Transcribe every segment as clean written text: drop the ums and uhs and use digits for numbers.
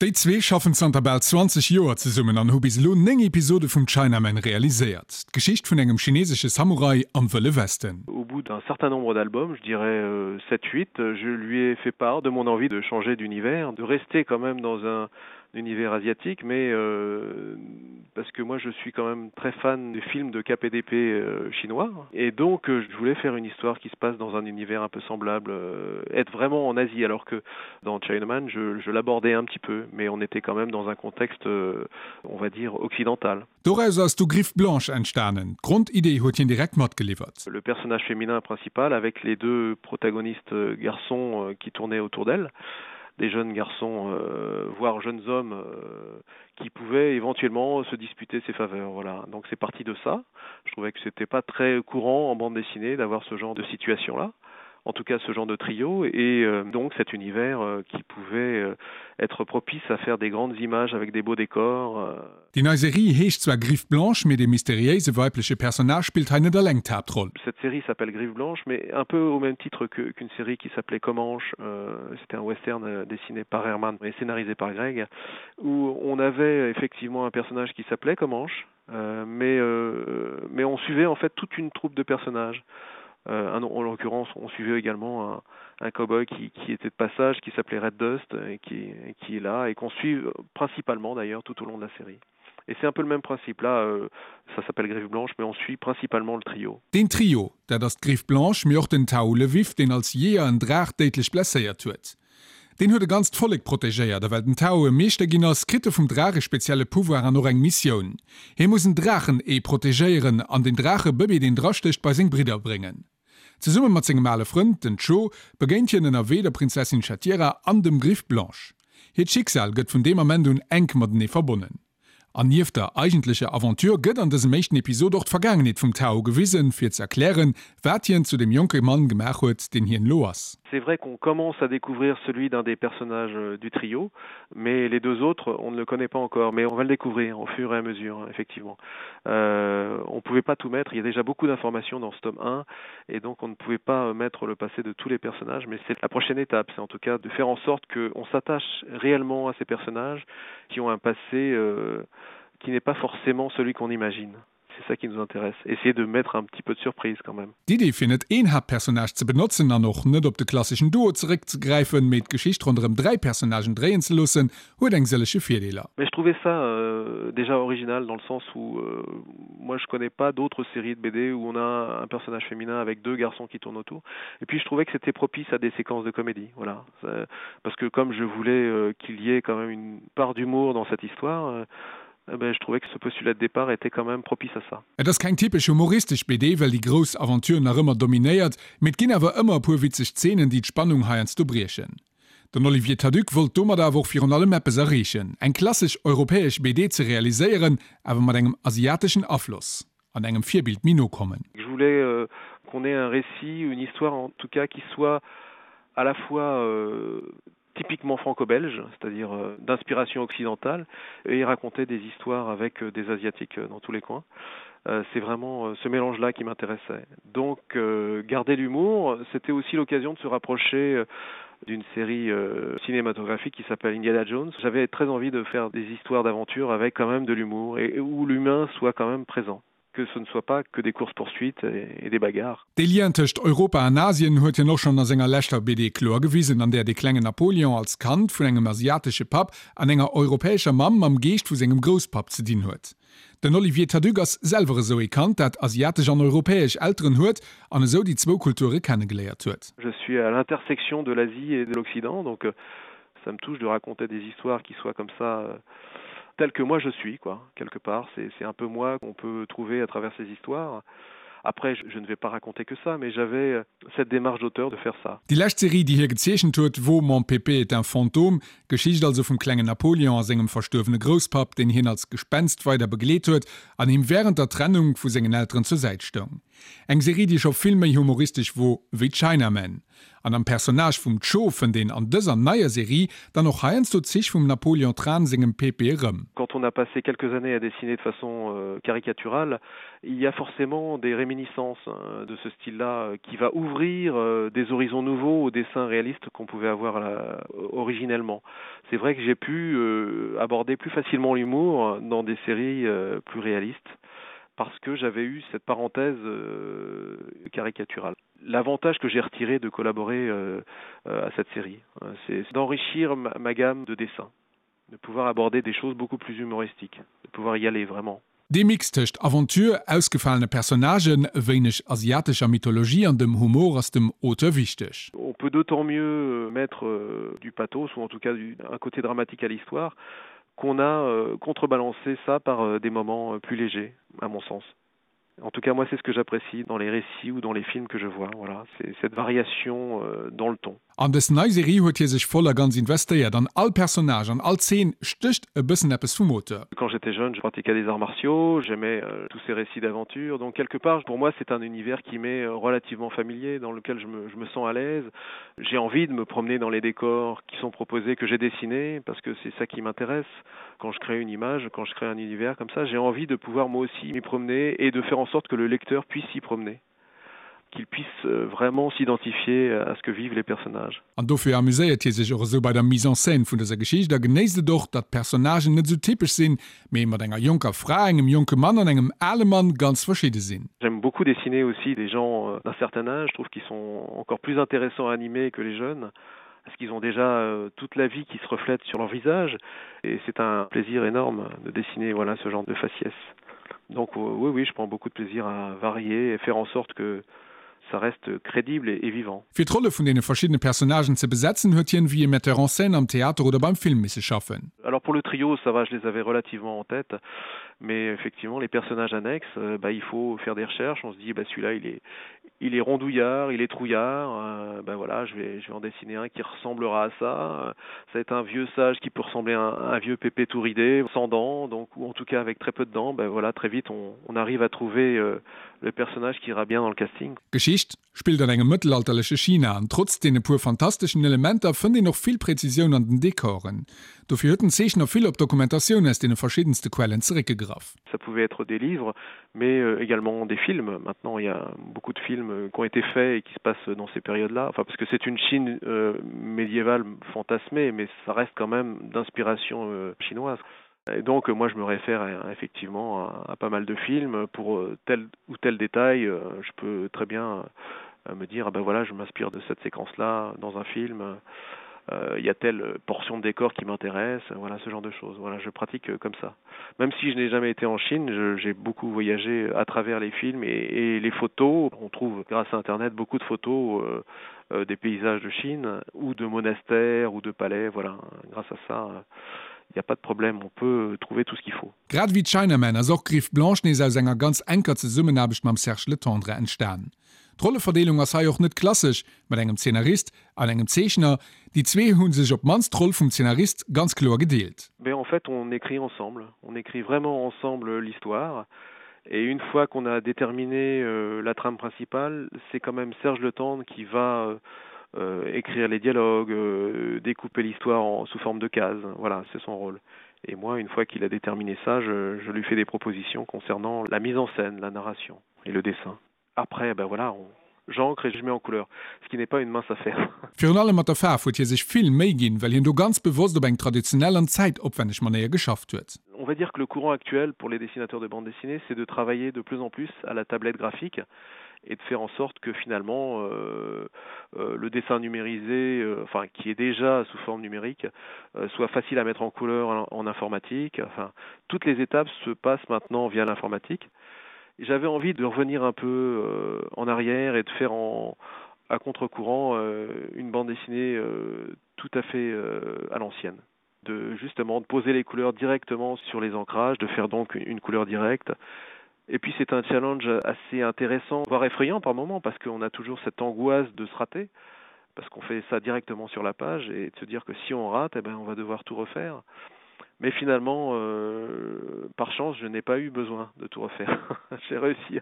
Déi zwee schaffen zanter bal 20 Joer zesummen an hu bis elo 9 Episode vum Chinaman realiséiert. D'Geschicht vun engem chinesesche Samurai am Wëlle Westen. Au bout d'un certain nombre d'albums, je dirais 7, 8, je lui ai fait part de mon envie de changer d'univers, de rester quand même dans un univers asiatique mais euh, parce que moi je suis quand même très fan des films de KPDP euh, chinois et donc euh, je voulais faire une histoire qui se passe dans un univers un peu semblable euh, être vraiment en Asie alors que dans Chinaman je, je l'abordais un petit peu mais on était quand même dans un contexte euh, on va dire occidental. Doraus ass du Griffe Blanche entstanen. D'Grondidee huet hien direkt matgeliwwert. Le personnage féminin principal avec les deux protagonistes euh, garçons euh, qui tournaient autour d'elle, des jeunes garçons euh, voire jeunes hommes euh, qui pouvaient éventuellement se disputer ses faveurs. Voilà. Donc c'est parti de ça. Je trouvais que c'était pas très courant en bande dessinée d'avoir ce genre de situation là en tout cas ce genre de trio et euh, donc cet univers euh, qui pouvait euh, être propice à faire des grandes images avec des beaux décors. Euh. Déi nei Serie heescht zwar Griffe Blanche, mee de mysteriéise weibleche Personnage spillt hei net eleng d'Haaptroll. Cette série s'appelle Griffe Blanche, mais un peu au même titre que, qu'une série qui s'appelait Comanche, euh, c'était un western euh, dessiné par Herman et scénarisé par Greg, où on avait effectivement un personnage qui s'appelait Comanche, euh, mais, euh, mais on suivait en fait toute une troupe de personnages. Euh, un, en l'occurrence, on suivait également un, un cowboy qui, qui était de passage, qui s'appelait Red Dust et qui, et qui est là et qu'on suit principalement d'ailleurs tout au long de la série. Et c'est un peu le même principe là, euh, ça s'appelle Griffe Blanche, mais on suit principalement le trio. Deen Trio, dat ass d'Griffe Blanche, mee och den Tao Levif, deen als Jeeër en Draach déidlech blesséiert huet. Deen huet e ganzt Vollek protegéiert a well den Tao e Meeschter ginn ass, kritt e vum Draach e spezielle Pouvoir an och eng Missioun. Hie muss en Draachen-Ee protegéieren an den Draachebëbee, deen drastécht, bei seng Bridder bréngen. Zesumme mat sengem ale Frënd, den Cho, begéint hien ënnerwee der Prinzessin Shatira an dem Griffe Blanche. Hiert Schicksal gëtt vun deem Ament un enk matenee verbonnen. An nieft der eigentlecher Aventure gëtt an dësem éischten Episod och d'Vergaangenheet vum Tao gewisen, fir ze erklären, wat hien zu deem jonke Mann gemaach huet, deen hien elo ass. C'est vrai qu'on commence à découvrir celui d'un des personnages euh, du trio, mais les deux autres, on ne le connaît pas encore, mais on va le découvrir au fur et à mesure, effectivement. Euh, on ne pouvait pas tout mettre, il y a déjà beaucoup d'informations dans ce tome 1, et donc on ne pouvait pas euh, mettre le passé de tous les personnages, mais c'est la prochaine étape, c'est en tout cas de faire en sorte qu'on s'attache réellement à ces personnages qui ont un passé euh, qui n'est pas forcément celui qu'on imagine. C'est ça qui nous intéresse. Essayer de mettre un petit peu de surprise quand même. D'Idee fir net een Haaptpersonnage ze benotzen an och net op de klasseschen Duo zeréckzegräifen, mee d'Geschicht ronderëm 3 Personnagen dréien ze loossen, huet eng sëllege Virdeeler. Mais je trouvais ça euh, déjà original dans le sens où euh, moi je connais pas d'autres séries de BD où on a un personnage féminin avec deux garçons qui tournent autour. Et puis je trouvais que c'était propice à des séquences de comédie. Voilà. Parce que comme je voulais euh, qu'il y ait quand même une part d'humour dans cette histoire, euh, eh ben, je trouvais que ce postulat de départ était quand même propice à ça. Et ass keng typesch humoristesch BD, well déi grouss Aventure nach ëmmer dominéiert, mee et ginn awer ëmmer e puer witzeg Zeenen, déi d'Spannung heiansdo briechen. Den Olivier Taduc wollt domat awer och virun allem eppes erreechen, eng klassesch europäesch BD ze realiséieren, awer mat engem asiateschen Afloss an engem Virbild méi no kommen. Je voulais euh, qu'on ait un récit, une histoire en tout cas qui soit à la fois euh, typiquement franco-belge, c'est-à-dire euh, d'inspiration occidentale, et raconter des histoires avec euh, des asiatiques euh, dans tous les coins. Euh, c'est vraiment euh, ce mélange-là qui m'intéressait. Donc euh, garder l'humour, c'était aussi l'occasion de se rapprocher euh, d'une série euh, cinématographique qui s'appelle Indiana Jones. J'avais très envie de faire des histoires d'aventure avec quand même de l'humour et, et où l'humain soit quand même présent que ce ne soit pas que des courses poursuites et, et des bagarres. De Lien tëscht Europa an Asien huet hien och schonn a senger leschter BD kloer gewisen, an där de klengen Napoleon als Kand vun engem asiatesche Papp an enger europäescher Mamm mam Geescht vu sengem Grousspapp ze dinn huet. Den Olivier Taduc ass selwer esou ee Kand, dat asiatesch an europäesch Elteren huet an esou déi zwou Kulture kennegeléiert huet. Je suis à l'intersection de l'Asie et de l'Occident, donc euh, ça me touche de raconter des histoires qui soient comme ça euh, telles que moi je suis quoi quelque part c'est un peu moi qu'on peut trouver à travers ces histoires. Après je, je ne vais pas raconter que ça mais j'avais euh, cette démarche d'auteur de faire ça. Déi lescht Serie déi hie gezeechent huet wor Mon Pépé est un fantôme, d'Geschicht also vum klengen Napoleon a sengem verstuerwene Grousspapp, deen hien als Gespenst weider begleet huet an him wärend der Trennung vu sengen Elteren zur Säit stoung. Eng Serie, déi scho vill méi humoristesch wor wéi Chinaman. An am Personnage vum Cho fënnt een an dëser neier Serie dann och heiansdo Zich vum Napoleon Tran sengem Pepe erëm. Quand on a passé quelques années à dessiner de façon caricaturale, il y a forcément des réminiscences de ce style-là qui va ouvrir des horizons nouveaux au dessin réaliste qu'on pouvait avoir originellement. C'est vrai que j'ai pu aborder plus facilement l'humour dans des séries plus réalistes parce que j'avais eu cette parenthèse caricaturale. L'avantage que j'ai retiré de collaborer à cette série, c'est d'enrichir ma, ma gamme de dessins, de pouvoir aborder des choses beaucoup plus humoristiques, de pouvoir y aller vraiment. Dee Mix tëscht Aventure, ausgefalene Personnagen, e wéineg asiatescher Mythologie an dem Humor ass dem Auteur wichteg. On peut d'autant mieux mettre du pathos ou en tout cas un côté dramatique à l'histoire qu'on a contrebalancé ça par des moments plus légers, à mon sens. En tout cas moi c'est ce que j'apprécie dans les récits ou dans les films que je vois voilà c'est cette variation euh, dans le ton. An dës nei Serie huet hie sech voll a ganz investéiert, an all Personnage an all Zeen stécht e bëssen eppes vum Auteur. Quand j'étais jeune, je pratiquais des arts martiaux, j'aimais euh, tous ces récits d'aventure, donc quelque part pour moi c'est un univers qui m'est euh, relativement familier, dans lequel je me, je me sens à l'aise. J'ai envie de me promener dans les décors qui sont proposés, que j'ai dessinés, parce que c'est ça qui m'intéresse. Quand je crée une image, quand je crée un univers comme ça, j'ai envie de pouvoir moi aussi m'y promener et de faire en sorte que le lecteur puisse s'y promener qu'il puisse euh, vraiment s'identifier à ce que vivent les personnages. An dofir amuséiert hie sech och esou bei der Mise en scène vun dëser Geschicht a genéisst et och, datt d'Personnagen net esou typesch sinn, mee mat enger jonker Fra, engem jonke Mann an engem ale Mann ganz verschidde sinn. J'aime beaucoup dessiner aussi des gens euh, d'un certain âge, je trouve qu'ils sont encore plus intéressants à animer que les jeunes parce qu'ils ont déjà euh, toute la vie qui se reflète sur leur visage et c'est un plaisir énorme de dessiner voilà ce genre de faciès. Donc euh, oui oui, je prends beaucoup de plaisir à varier et faire en sorte que ça reste crédible et, et vivant. Fir d'Rolle vun deene verschiddene Personnagen ze besetzen, huet hien wéi e Metteur en scène am Theater oder beim Film misse schaffen. Alors pour le trio, ça va, je les avais relativement en tête, mais effectivement les personnages annexes, euh, bah, il faut faire des recherches, on se dit bah, celui-là il est, il est rondouillard, il est trouillard, euh, ben voilà, je vais, je vais en dessiner un qui ressemblera à ça. Ça va être un vieux sage qui peut ressembler à un, un vieux pépé tout ridé, sans dents, donc, ou en tout cas avec très peu de dents, ben voilà, très vite on, on arrive à trouver euh, le personnage qui ira bien dans le casting. D'Geschicht spillt an engem mëttelalterleche China an trotz deene puer fantasteschen Elementer fënnt een och vill Präzisioun an den Dekoren. Dofir huet den Zeechner vill op Dokumentatioun aus deene verschiddenste Quellen zeréckgegraff. Ça pouvait être des livres, mais euh, également des films. Maintenant, il y a beaucoup de films euh, qui ont été faits et qui se passent dans ces périodes-là. Enfin, parce que c'est une Chine euh, médiévale fantasmée, mais ça reste quand même d'inspiration euh, chinoise. Et donc moi je me réfère à, effectivement à, à pas mal de films pour euh, tel ou tel détail, euh, je peux très bien euh, me dire ah ben voilà, je m'inspire de cette séquence là dans un film. Euh, il y a telle portion de décor qui m'intéresse, voilà ce genre de choses. Voilà, je pratique euh, comme ça. Même si je n'ai jamais été en Chine, j'ai beaucoup voyagé à travers les films et, et les photos. On trouve grâce à internet beaucoup de photos euh, euh, des paysages de Chine ou de monastères ou de palais voilà grâce à ça euh, il n'y a pas de problème, on peut trouver tout ce qu'il faut. Grad wéi Chinaman ass och Griffe Blanche nees aus enger ganz enker Zesummenaarbecht mam Serge Letendre entstan. D'Rolleverdeelung ass hei och net klassesch, mat engem Zeenarist an engem Zeechner. Déi zwee hu sech op d'mannst d'Roll vum Zeenarist ganz kloer gedeelt. Mais en fait on écrit ensemble, on écrit vraiment ensemble l'histoire et une fois qu'on a déterminé euh, la trame principale, c'est quand même Serge Letendre qui va euh, euh, écrire les dialogues, euh, découper l'histoire sous forme de cases. Voilà, c'est son rôle. Et moi, une fois qu'il a déterminé ça, je, je lui fais des propositions concernant la mise en scène, la narration et le dessin. Après, ben voilà, on, j'encre et je mets en couleur, ce qui n'est pas une mince affaire. Virun allem mat der Faarf huet hie sech vill Méi ginn, well hien do ganz bewosst op eng traditionell an zäitopwänneg Manéier geschafft huet. On va dire que le courant actuel pour les dessinateurs de bande dessinée, c'est de travailler de plus en plus à la tablette graphique et de faire en sorte que finalement euh, euh, le dessin numérisé, euh, enfin qui est déjà sous forme numérique, euh, soit facile à mettre en couleur en, en informatique. Enfin, toutes les étapes se passent maintenant via l'informatique. J'avais envie de revenir un peu euh, en arrière et de faire en, à contre-courant euh, une bande dessinée euh, tout à fait euh, à l'ancienne de justement de poser les couleurs directement sur les ancrages, de faire donc une couleur directe. Et puis c'est un challenge assez intéressant, voire effrayant par moment parce qu'on a toujours cette angoisse de se rater parce qu'on fait ça directement sur la page et de se dire que si on rate, eh ben on va devoir tout refaire. Mais finalement, euh, par chance, je n'ai pas eu besoin de tout refaire. J'ai réussi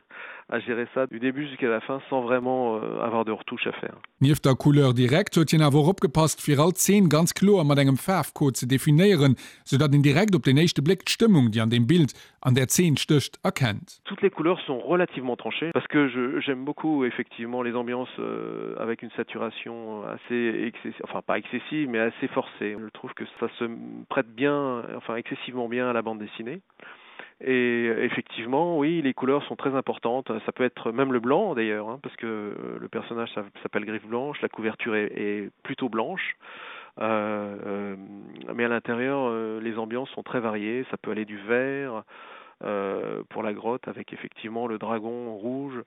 à gérer ça du début jusqu'à la fin sans vraiment euh, avoir de retouches à faire. Nieft der Couleur directe huet hien awer och opgepasst, fir all Zeen ganz kloer mat engem Faarfcode ze definéieren, sou datt een direkt op den éischte Bléck d'Stëmmung, déi an deem Bild, an där Zeen stécht, erkennt. Toutes les couleurs sont relativement tranchées parce que je j'aime beaucoup effectivement les ambiances euh, avec une saturation assez excessive, enfin pas excessive mais assez forcée. Je trouve que ça se prête bien, enfin excessivement bien à la bande dessinée. Et effectivement, oui, les couleurs sont très importantes. Ça peut être même le blanc d'ailleurs, parce que euh, le personnage s'appelle Griffe Blanche, la couverture est, est plutôt blanche. Euh, euh, mais à l'intérieur, euh, les ambiances sont très variées. Ça peut aller du vert euh, pour la grotte avec effectivement le dragon rouge.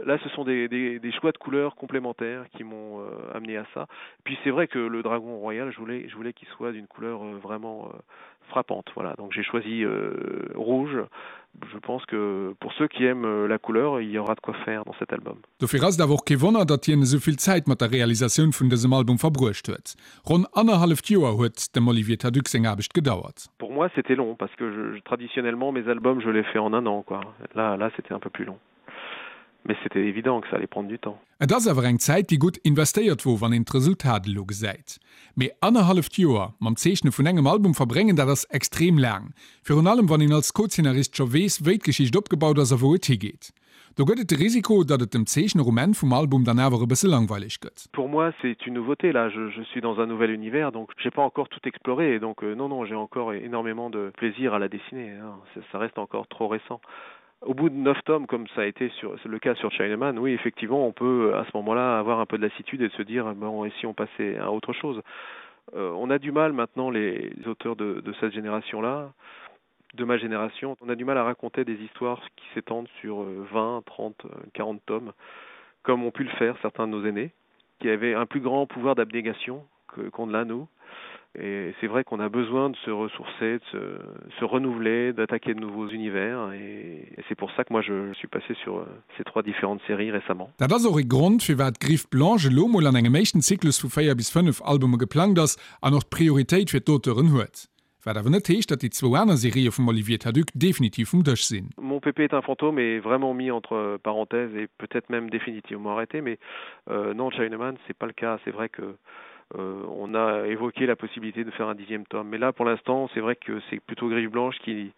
Là, ce sont des, des, des choix de couleurs complémentaires qui m'ont euh, amené à ça. Puis c'est vrai que le dragon royal, je voulais, je voulais qu'il soit d'une couleur euh, vraiment euh, frappante. Voilà, donc j'ai choisi euh, rouge. Je pense que pour ceux qui aiment euh, la couleur, il y aura de quoi faire dans cet album. Dofir ass et awer och kee Wonner, datt hien esou vill Zäit mat der Realisatioun vun dësem Album verbruecht huet. Ronn annerhalleft Joer huet dem Olivier Thaduc seng Aarbecht gedauert. Pour moi c'était long parce que je, traditionnellement mes albums je les fais en un an quoi. Là, là c'était un peu plus long. Mais c'était évident que ça allait prendre du temps. Et ass awer eng Zäit, déi gutt investéiert wor, wann een d'Resultat elo gesäit. Mee annerhalleft Joer mam Zeechne vun engem Album verbréngen, dat ass extrem laang. Virun allem wann een als Co-Zeenarist scho weess, wéi d'Geschicht opgebaut ass a wou et higeet. Do gëtt et de Risiko, datt et dem Zeechner um Enn vum Album dann awer e bësse langweileg gëtt. Pour moi c'est une nouveauté là, je, je suis dans un nouvel univers donc j'ai pas encore tout exploré donc euh, non non j'ai encore énormément de plaisir à la dessiner hein. ça, ça reste encore trop récent. Au bout de neuf tomes comme ça a été sur le cas sur Chinaman, oui effectivement on peut à ce moment-là avoir un peu de lassitude et de se dire bon et si on passait à autre chose. Euh, on a du mal maintenant les auteurs de, de cette génération là de ma génération, on a du mal à raconter des histoires qui s'étendent sur 20, 30, 40 tomes comme ont pu le faire certains de nos aînés qui avaient un plus grand pouvoir d'abnégation qu'on l'a nous. Et c'est vrai qu'on a besoin de se ressourcer, de se, se renouveler, d'attaquer de nouveaux univers et, et c'est pour ça que moi je suis passé sur euh, ces trois différentes séries récemment. Dat ass och e Grond, firwat Griffe Blanche elo mol an engem éischten Zyklus vu 4 bis 5 Albume geplangt ass an och d'Prioritéit fir d'Auteuren huet. Wat awer net heescht, datt déi zwou aner Serië vum Olivier Thaduc definitiv vum Dësch sinn. Mon pépé est un fantôme est vraiment mis entre parenthèses et peut-être même définitivement arrêté mais euh, non Chinaman c'est pas le cas c'est vrai que euh, on a évoqué la possibilité de faire un dixième tome mais là pour l'instant c'est vrai que c'est plutôt griffe blanche qui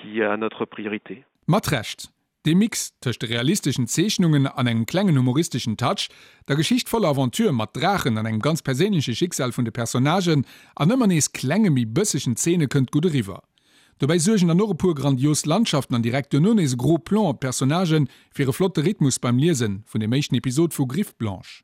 qui a notre priorité. Mat Recht. Dee Mix tëscht de realisteschen Zeechnungen an engem klengen humoristeschen Touch, der Geschicht voller Aventure mat Draachen an engem ganz perséinleche Schicksal vun de Personnagen an ëmmer nees klenge méi bëssegen Zeene kënnt gutt eriwwer. Dobäi suergen dann och e puer grandios Landschaften an direkt duerno nees e gros Plan op d'Personnagen fir e flotte Rhythmus beim Liesen vun dem éischten Episod vu Griffe Blanche.